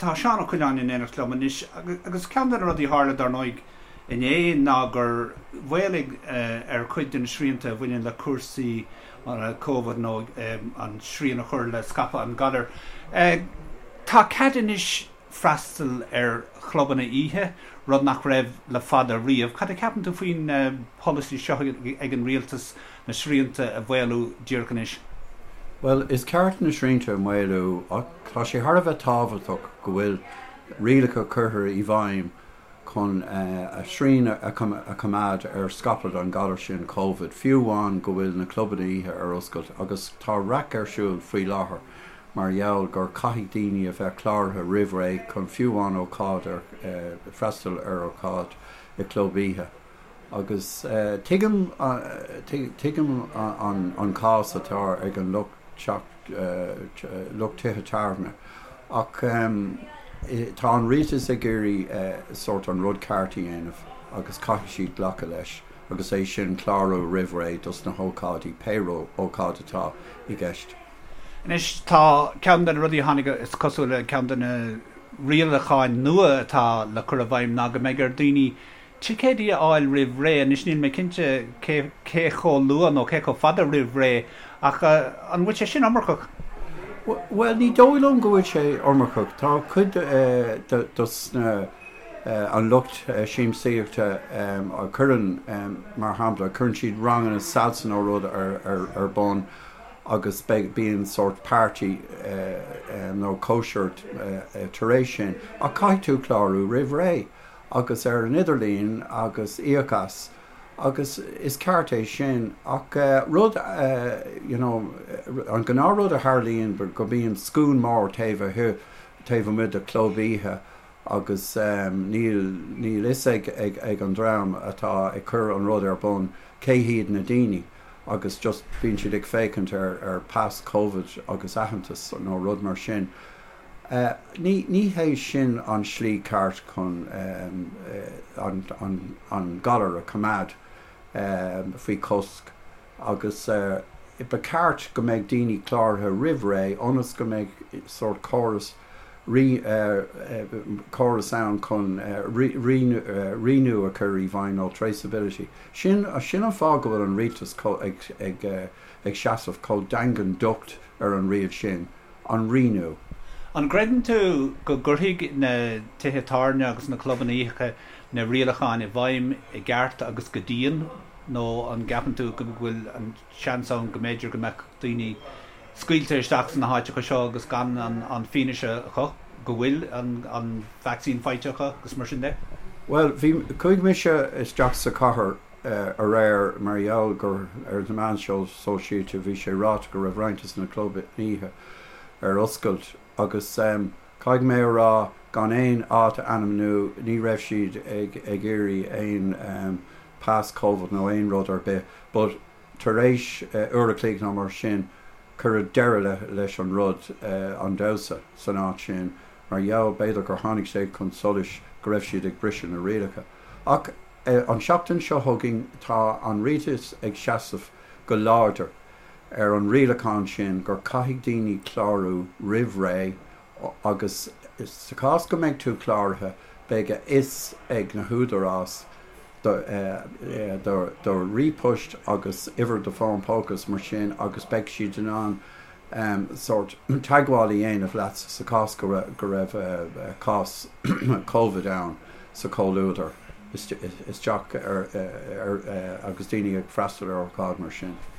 Tá Seán Ó Coileáin in éineacht liom anois agus ceann de na rudaí a tharla, dar ndóigh, inné ná gur mhaolaigh ar chuid de na srianta a bhaineann le cúrsaí Covid nó an srian a chur le scaipeadh an ghalair. Tá cead anois freastal ar chlubanna oíche, rud nach raibh le fada riamh. Cad a cheapann tú faoin pholasaí seo ag an rialtas na srianta a mhaolú díreach anois? Bhuel, is ceart na srianta a mhaolú ach tá sé thar a bheith tábhachtach go bhfuil rialacha curtha i bhfeidhm chun srian a choimeád ar scaipeadh an ghalar sin Covid, fiú amháin go bhfuil na clubanna oíche ar oscailt agus tá raic ar siúl faoi láthair mar gheall gur caithfidh daoine a bheith cláraithe roimh ré chun fiú amháin ócáid ar freastal ar ócáid i gclub oíche. Agus tuigim, tuigim an cás atá ag an lucht teach, lucht tithe tábhairne ach tá an rialtas ag iarraidh sórt an rud ceart a dhéanamh agus caithfidh siad glacadh leis agus é sin clárú roimh ré dos na hócáidí, pé ócáid atá i gceist. Anois tá ceann de na rudaí a tháinig, is cosúil, ceann de na rialacháin nua atá le cur i bhfeidhm ná go mbeidh ar daoine ticéidí a fháil roimh ré. Anois níl mé cinnte cé cé chomh luath nó cé chomh fada roimh ré ach an bhfuil sé sin iomarcach? Bhuel, ní dóigh liom go bhfuil sé iomarcach. Tá cuid dos na an lucht siamsaíochta a chuireann, mar shampla, cuireann siad ranganna salsa nó rud ar bun agus bíonn sórt party nó cóisir tar éis sin ach caithfidh tú clárú roimh ré. agus ar an idirlíon agus íoc as agus is ceart é sin ach rud you know an gnáth rud a tharlaíonn go mbíonn scuaine mór taobh taobh amuigh de chlub oíche agus níl níl fhios ag ag ag an dream atá ag cur an rud ar bun cé hiad na daoine agus just bíonn siad ag féachaint ar ar pas covid agus aitheantas nó rud mar sin. Ní hé sin an slí ceart chun an galar a choimeád faoi chosc agus ba cheart go mbeidh daoine cláraithe roimh ré ionas go mbeidh sórt córas córas ann chun rianú a chur i bhfeidhm nó traceability. Sin an fáth go bhfuil an rialtas ag seasamh chomh daingean docht ar an riail sin. an rianú. An gcreideann tú go gcuirfidh na tithe tábhairne agus na clubanna oíche na rialacháin i bhfeidhm i gceart agus go dian nó an gceapann tú go bhfuil an seans ann go mb'fhéidir go mbeadh daoine scaoilte isteach sna háiteacha seo agus gan an fianaise acu go bhfuil an vacsaín faighte acu agus mar sin de? Bhuel, bhí, chuaigh mise isteach sa chathair aréir mar gheall gur ar na meáin sóisialta bhí sé ráite go raibh roinnt de na clubanna oíche ar oscailt agus caithfidh mé a rá gan aon áit a ainmniú ní raibh siad ag ag iarraidh aon pas covid nó aon rud ar bith but tar éis uair a chloig nó mar sin cuireadh deireadh leis an rud an damhsa san áit sin mar gheall b'fhéidir gur tháinig sé chun solais go raibh siad ag briseadh na rialacha ach An seachtain seo chugainn tá an rialtas ag seasamh go láidir ar an rialachán sin gur caithfidh daoine clárú roimh ré agus sa chás go mbeidh tú cláraithe beidh a fhios ag na húdaráis do do ríomhphost agus uimhir do fón póca is mar sin agus beidh siad in ann sórt teagmháil a dhéanamh leat sa chás go raibh cás Covid ann sa chomhluadar isteach ar agus daoine ag freastal ar ócáid mar sin.